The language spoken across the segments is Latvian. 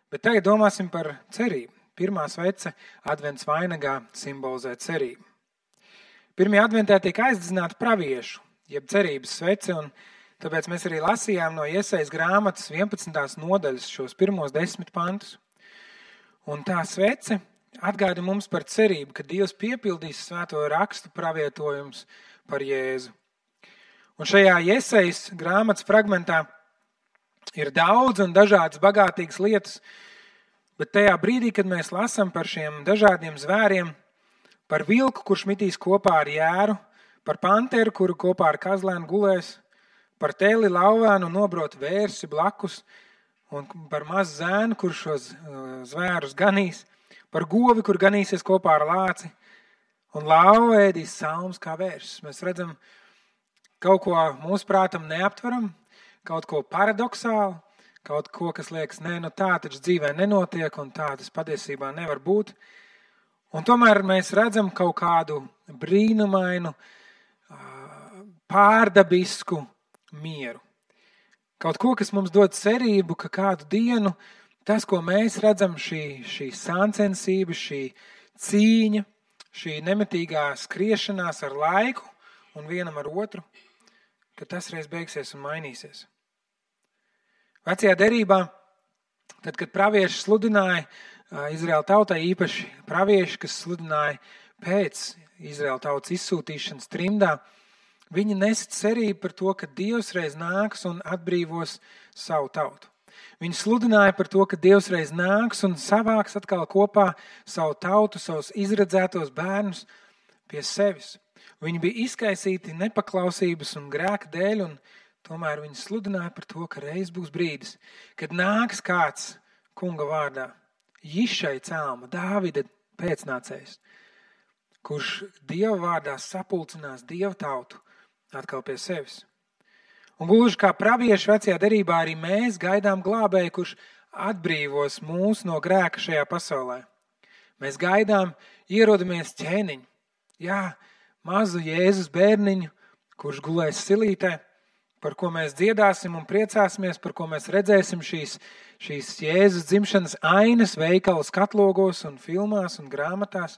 Bet tagad domāsim par cerību. Pirmā svece advents vainagā simbolizē cerību. Pirmajā adventē tiek aizdedzināta praviešu, jeb cerības svece, un tāpēc mēs arī lasījām no Iesajas grāmatas 11. nodaļas šos pirmos 10 pantus. Un tā svece atgāda mums par cerību, ka Dievs piepildīs svēto rakstu pravietojumus par Jēzu. Un šajā Iesajas grāmatas fragmentā ir daudz un dažādas bagātīgas lietas, bet tajā brīdī, kad mēs lasām par šiem dažādiem zvēriem, par vilku, kurš mitīs kopā ar jēru, par panteru, kuru kopā ar kazlēnu gulēs, par teli, lauvānu un nobrotu vērsi blakus, un par mazu zēnu, kurš šos zvērus ganīs, par govi, kur ganīsies kopā ar lāci, un lauva ēdīs salmus kā vērsis. Mēs redzam kaut ko mūsu prātam neaptveram, kaut ko paradoxālu, kaut ko, kas liekas, tā taču dzīvē nenotiek, un tā tas patiesībā nevar būt. Un tomēr mēs redzam kaut kādu brīnumainu, pārdabisku mieru. Kaut ko, kas mums dod cerību, ka kādu dienu tas, ko mēs redzam, šī sāncensība, šī cīņa, šī nemitīgā skriešanās ar laiku un vienam ar otru, ka tas reiz beigsies un mainīsies. Vecajā derībā, tad, kad pravieši sludināja Izraēla tautai, īpaši pravieši, kas sludināja pēc Izraēla tautas izsūtīšanas trimdā, viņi nesa cerību par to, ka Dievs reiz nāks un atbrīvos savu tautu. Viņi sludināja par to, ka Dievs reiz nāks un savāks atkal kopā savu tautu, savus izredzētos bērnus pie sevis. Viņi bija izkaisīti nepaklausības un grēka dēļ, un tomēr viņi sludināja par to, ka reiz būs brīdis, kad nāks kāds kunga vārdā, Jišai cēlma, Dāvida pēcnācējs, kurš Dieva vārdā sapulcinās Dieva tautu atkal pie sevis. Un gluži kā pravieši vecajā derībā, arī mēs gaidām glābēju, kurš atbrīvos mūs no grēka šajā pasaulē. Mēs gaidām, ierodamies ķēniņu, mazu Jēzus bērniņu, kurš gulēs silītē, par ko mēs dziedāsim un priecāsimies, par ko mēs redzēsim šīs Jēzus dzimšanas ainas veikalu skatlogos un filmās un grāmatās.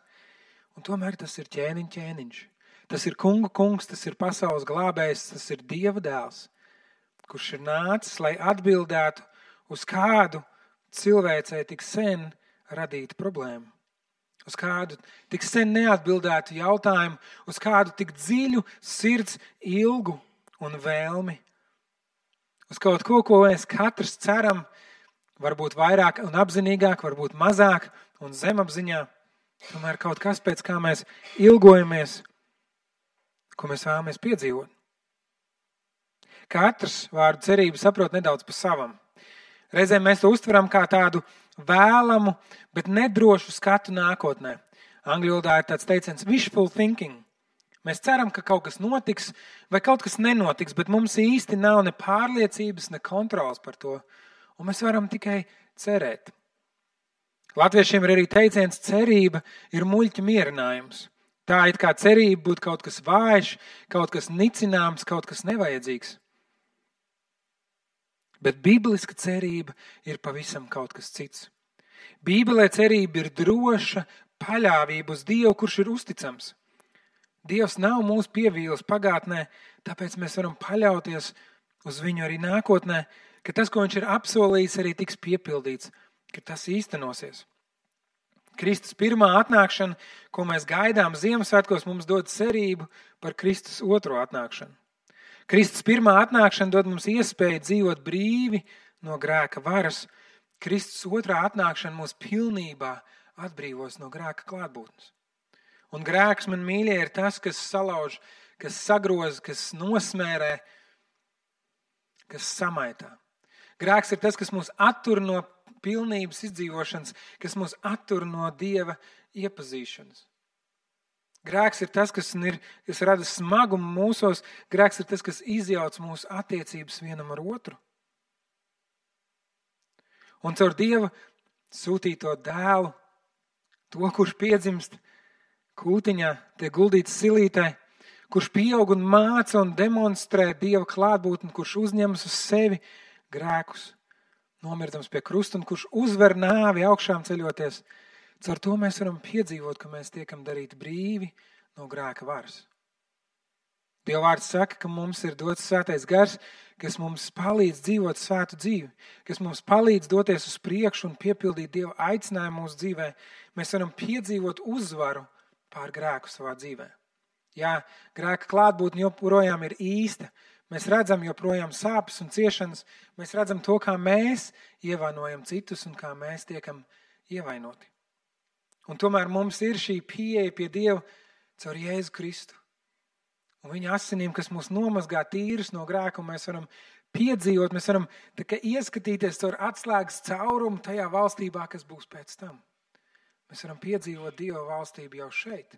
Un tomēr tas ir ķēniņš. Tas ir kungu kungs, tas ir pasaules glābējs, tas ir Dieva dēls, kurš ir nācis, lai atbildētu uz kādu cilvēcei tik sen radītu problēmu. Uz kādu tik sen neatbildētu jautājumu, uz kādu tik dziļu sirds ilgu un vēlmi. Uz kaut ko mēs katrs ceram, varbūt vairāk un apzinīgāk, varbūt mazāk un zemapziņā. Tomēr kaut kas, pēc kā mēs ilgojamies, ko mēs vēlamies piedzīvot. Katrs vārdu cerību saprot nedaudz pa savam. Reizēm mēs to uztveram kā tādu vēlamu, bet nedrošu skatu nākotnē. Angļu valodā ir tāds teiciens wishful thinking. Mēs ceram, ka kaut kas notiks vai kaut kas nenotiks, bet mums īsti nav ne pārliecības, ne kontrols par to. Un mēs varam tikai cerēt. Latviešiem ir arī teiciens, cerība ir muļķa mierinājums. Tā it kā cerība būtu kaut kas vājš, kaut kas nicināms, kaut kas nevajadzīgs. Bet bibliska cerība ir pavisam kaut kas cits. Bībelē cerība ir droša paļāvība uz Dievu, kurš ir uzticams. Dievs nav mūs pievīlis pagātnē, tāpēc mēs varam paļauties uz viņu arī nākotnē, ka tas, ko viņš ir apsolījis, arī tiks piepildīts, ka tas īstenosies. Kristus pirmā atnākšana, ko mēs gaidām Ziemassvētkos, mums dod cerību par Kristus otro atnākšanu. Kristus pirmā atnākšana dod mums iespēju dzīvot brīvi no grēka varas. Kristus otrā atnākšana mūs pilnībā atbrīvos no grēka klātbūtnes. Un grēks, man mīļie, ir tas, kas salauž, kas sagroz, kas nosmērē, kas samaitā. Grēks ir tas, kas mūs attur no pilnības izdzīvošanas, kas mūs attur no Dieva iepazīšanas. Grēks ir tas, kas rada smagumu mūsos. Grēks ir tas, kas izjauc mūsu attiecības vienam ar otru. Un caur Dieva sūtīto dēlu, to, kurš piedzimst kūtiņā, tiek guldīts silītē, kurš pieaug un māca un demonstrē Dieva klātbūtni, kurš uzņemas uz sevi grēkus, nomirdams pie krusta un kurš uzvar nāvi augšām ceļoties. Caur to mēs varam piedzīvot, ka mēs tiekam darīti brīvi no grēka varas. Dieva vārds saka, ka mums ir dots svētais gars, kas mums palīdz dzīvot svētu dzīvi, kas mums palīdz doties uz priekšu un piepildīt Dieva aicinājumu mūsu dzīvē. Mēs varam piedzīvot uzvaru pār grēku savā dzīvē. Jā, grēka klātbūtne joprojām ir īsta. Mēs redzam joprojām sāpes un ciešanas. Mēs redzam to, kā mēs ievainojam citus un kā mēs tiekam ievainoti. Un tomēr mums ir šī pieeja pie Dieva caur Jēzu Kristu. Un viņa asinīm, kas mūs nomazgā tīrus no grēka, un mēs varam piedzīvot, mēs varam ieskatīties caur atslēgas caurumu tajā valstībā, kas būs pēc tam. Mēs varam piedzīvot Dieva valstību jau šeit.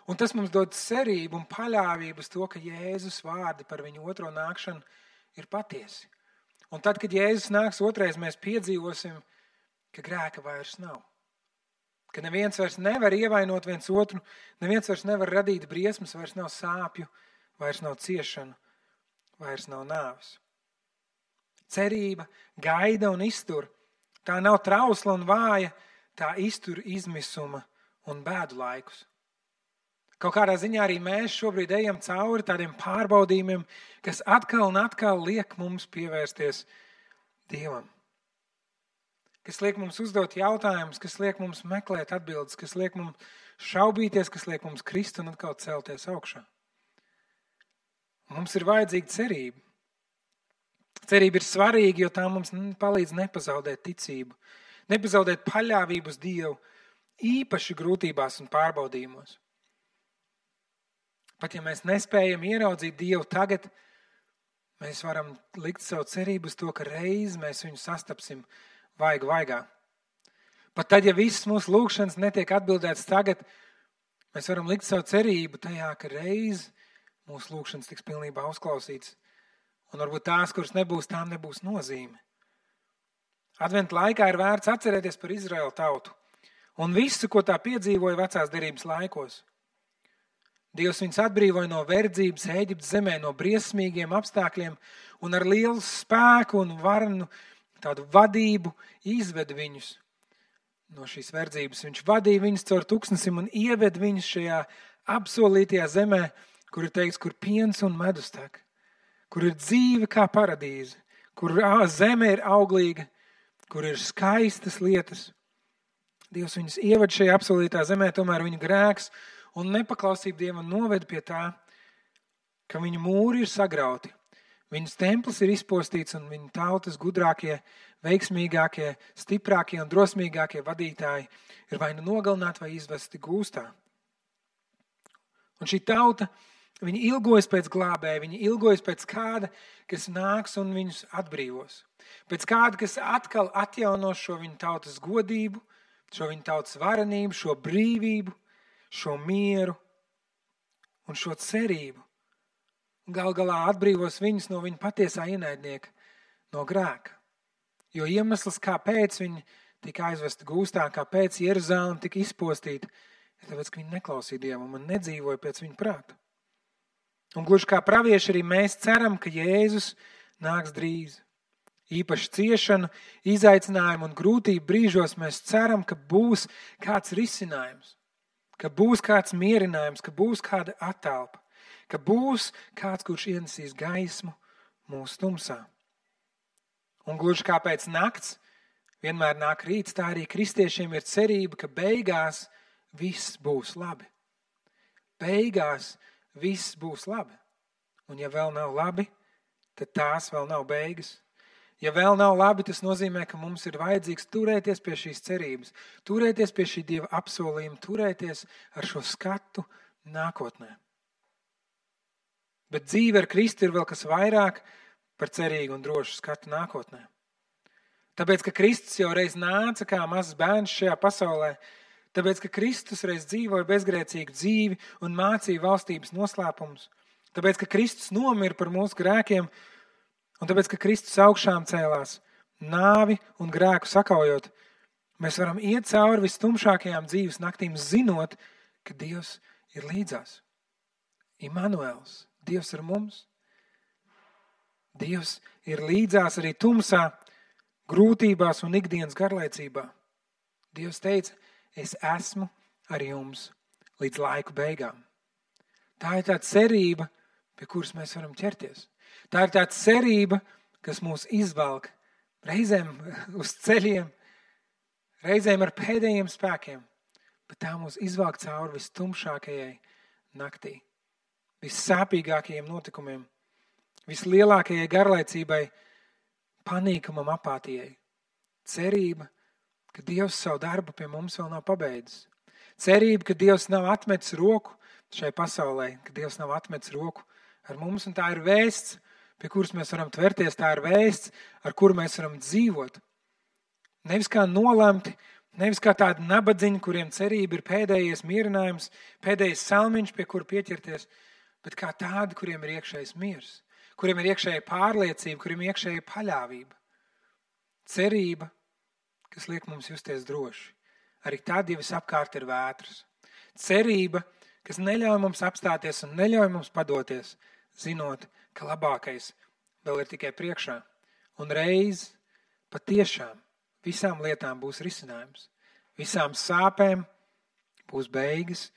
Un tas mums dod cerību un paļāvību uz to, ka Jēzus vārdi par viņu otro nākšanu ir patiesi. Un tad, kad Jēzus nāks otrais, mēs piedzīvosim, ka grēka vairs nav. Ka neviens vairs nevar ievainot viens otru, neviens vairs nevar radīt briesmas, vairs nav sāpju, vairs nav ciešanu, vairs nav nāves. Cerība gaida un iztur. Tā nav trausla un vāja, tā iztur izmisuma un bēdu laikus. Kaut kādā ziņā arī mēs šobrīd ejam cauri tādiem pārbaudījumiem, kas atkal un atkal liek mums pievērsties Dievam. Kas liek mums uzdot jautājumus, kas liek mums meklēt atbildes, kas liek mums šaubīties, kas liek mums krist un atkal celties augšā. Mums ir vajadzīga cerība. Cerība ir svarīga, jo tā mums palīdz nepazaudēt ticību, nepazaudēt paļāvību uz Dievu, īpaši grūtībās un pārbaudījumos. Pat ja mēs nespējam ieraudzīt Dievu tagad, mēs varam likt savu cerību uz to, ka reiz mēs viņu sastapsim vaigu vaigā. Pat tad, ja visas mūsu lūgšanas netiek atbildētas tagad, mēs varam likt savu cerību tajā, ka reiz mūsu lūgšanas tiks pilnībā uzklausītas. Un varbūt tās, kuras nebūs, tām nebūs nozīme. Adventa laikā ir vērts atcerēties par Izraēlu tautu un visu, ko tā piedzīvoja vecās derības laikos. Dievs viņus atbrīvoja no verdzības Ēģiptes zemē, no briesmīgiem apstākļiem un ar lielu spēku un varenu tādu vadību izved viņus no šīs verdzības. Viņš vadīja viņus caur tūkstnesim un ieved viņus šajā apsolītajā zemē, kur ir teikts, kur piens un medus tek, kur ir dzīve kā paradīze, kur zeme ir auglīga, kur ir skaistas lietas. Dievs viņus ieved šajā apsolītā zemē, tomēr viņu grēks un nepaklausība Dievam noved pie tā, ka viņu mūri ir sagrauti. Viņas templis ir izpostīts un viņa tautas gudrākie, veiksmīgākie, stiprākie un drosmīgākie vadītāji ir vai nu nogalināti vai izvesti gūstā. Un šī tauta, viņa ilgojas pēc glābēja, viņa ilgojas pēc kāda, kas nāks un viņus atbrīvos. Pēc kāda, kas atkal atjaunos šo viņu tautas godību, šo viņu tautas varenību, šo brīvību, šo mieru un šo cerību. Gal galā atbrīvos viņus no viņa patiesā ienaidnieka, no grēka. Jo iemesls, kāpēc viņi tika aizvesti gūstā, kāpēc Jeruzaleme tika izpostīta, ir tāpēc, ka viņi neklausīja Dievam un nedzīvoja pēc viņa prāta. Un gluži kā pravieši arī mēs ceram, ka Jēzus nāks drīz. Īpaši ciešanu, izaicinājumu un grūtību brīžos mēs ceram, ka būs kāds risinājums, ka būs kāds mierinājums, ka būs kāda attelpa. Ka būs kāds, kurš ienesīs gaismu mūsu tumsā. Un gluži kā pēc nakts vienmēr nāk rīts, tā arī kristiešiem ir cerība, ka beigās viss būs labi. Beigās viss būs labi. Un ja vēl nav labi, tad tās vēl nav beigas. Ja vēl nav labi, tas nozīmē, ka mums ir vajadzīgs turēties pie šīs cerības, turēties pie šī Dieva apsolījuma, turēties ar šo skatu nākotnē. Bet dzīve ar Kristu ir vēl kas vairāk par cerīgu un drošu skatu nākotnē. Tāpēc, ka Kristus jau reiz nāca kā mazs bērns šajā pasaulē, tāpēc, ka Kristus reiz dzīvoja bezgrēcīgu dzīvi un mācīja valstības noslēpumus, tāpēc, ka Kristus nomira par mūsu grēkiem un tāpēc, ka Kristus augšām cēlās, nāvi un grēku sakaujot, mēs varam iet cauri vistumšākajām dzīves naktīm, zinot, ka Dievs ir līdzās. Immanuels. Dievs ar mums. Dievs ir līdzās arī tumsā. grūtībās un ikdienas garlaicībā. Dievs teica, es esmu ar jums līdz laiku beigām. Tā ir tā cerība, pie kuras mēs varam ķerties. Tā ir tā cerība, kas mūs izvelk reizēm uz ceļiem, reizēm ar pēdējiem spēkiem, bet tā mūs izvelk cauri vistumšākajai naktī, vissāpīgākajiem notikumiem, vislielākajai garlaicībai, panīkumam, apātijai. Cerība, ka Dievs savu darbu pie mums vēl nav pabeidzis. Cerība, ka Dievs nav atmetis roku šai pasaulē, ka Dievs nav atmetis roku ar mums, un tā ir vēsts, pie kuras mēs varam tverties, tā ir vēsts, ar kuru mēs varam dzīvot. Nevis kā nolemti, nevis kā tādi nabadziņi, kuriem cerība ir pēdējais mierinājums, pēdējais salmiņš, pie kura pieķerties, bet kā tādi, kuriem ir iekšējais miers, kuriem ir iekšēja pārliecība, kuriem ir iekšēja paļāvība. Cerība, kas liek mums justies droši. Arī tad, ja visapkārt ir vētras. Cerība, kas neļauj mums apstāties un neļauj mums padoties, zinot, ka labākais vēl ir tikai priekšā. Un reiz patiešām visām lietām būs risinājums. Visām sāpēm būs beigas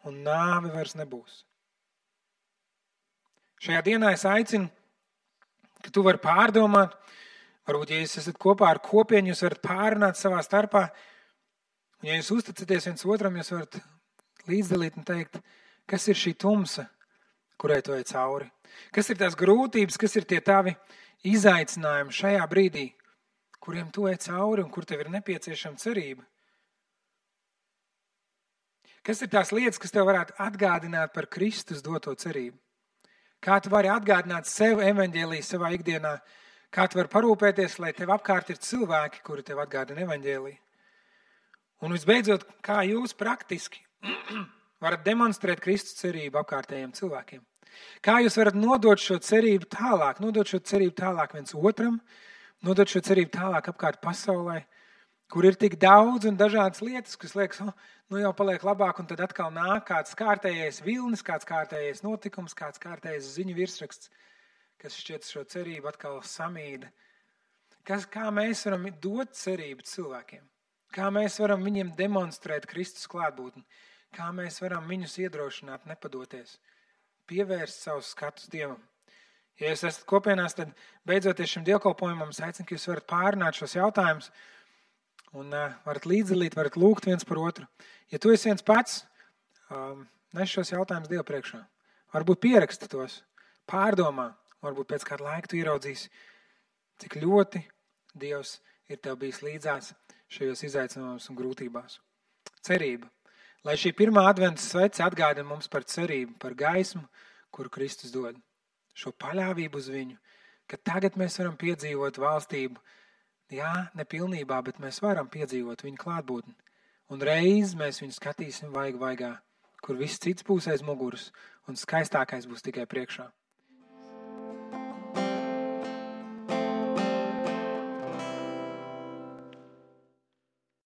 un nāve vairs nebūs. Šajā dienā es aicinu, ka tu vari pārdomāt, varbūt, ja jūs esat kopā ar kopienu, jūs varat pārunāt savā starpā, un ja jūs uzticaties viens otram, jūs varat līdzdalīt un teikt, kas ir šī tumsa, kurai tu ej cauri. Kas ir tās grūtības, kas ir tie tavi izaicinājumi šajā brīdī, kuriem tu ej cauri un kur tev ir nepieciešama cerība. Kas ir tās lietas, kas tev varētu atgādināt par Kristus doto cerību? Kā tu vari atgādināt sev evaņģēliju savā ikdienā? Kā tu vari parūpēties, lai tev apkārt ir cilvēki, kuri tev atgādina evaņģēliju? Un visbeidzot, kā jūs praktiski varat demonstrēt Kristus cerību apkārtējiem cilvēkiem? Kā jūs varat nodot šo cerību tālāk viens otram, nodot šo cerību tālāk apkārt pasaulē, kur ir tik daudz un dažādas lietas, kas liekas, nu jau paliek labāk, un tad atkal nāk kāds kārtējais vilnis, kāds kārtējais notikums, kāds kārtējais ziņu virsraksts, kas šķiet šo cerību atkal samīda. Kā mēs varam dot cerību cilvēkiem? Kā mēs varam viņiem demonstrēt Kristus klātbūtni? Kā mēs varam viņus iedrošināt, nepadoties, pievērst savus skatus Dievam? Ja jūs esat kopienās, tad beidzoties šim dievkalpojumam, es aicinu, ka jūs varat pārunāt šos jautājumus un varat līdzdalīt, varat lūgt viens par otru. Ja tu esi viens pats, nes šos jautājumus Dievu priekšā. Varbūt pieraksti tos, pārdomā, varbūt pēc kāda laika tu ieraudzīsi, cik ļoti Dievs ir tev bijis līdzās šajos izaicinājumos un grūtībās. Cerība. Lai šī pirmā adventa svece atgādina mums par cerību, par gaismu, kuru Kristus dod. Šo paļāvību uz viņu, ka tagad mēs varam piedzīvot valstību, jā, nepilnībā, bet mēs varam piedzīvot viņu klātbūtni. Un reiz mēs viņu skatīsim vaigu vaigā, kur viss cits būs aiz muguras un skaistākais būs tikai priekšā.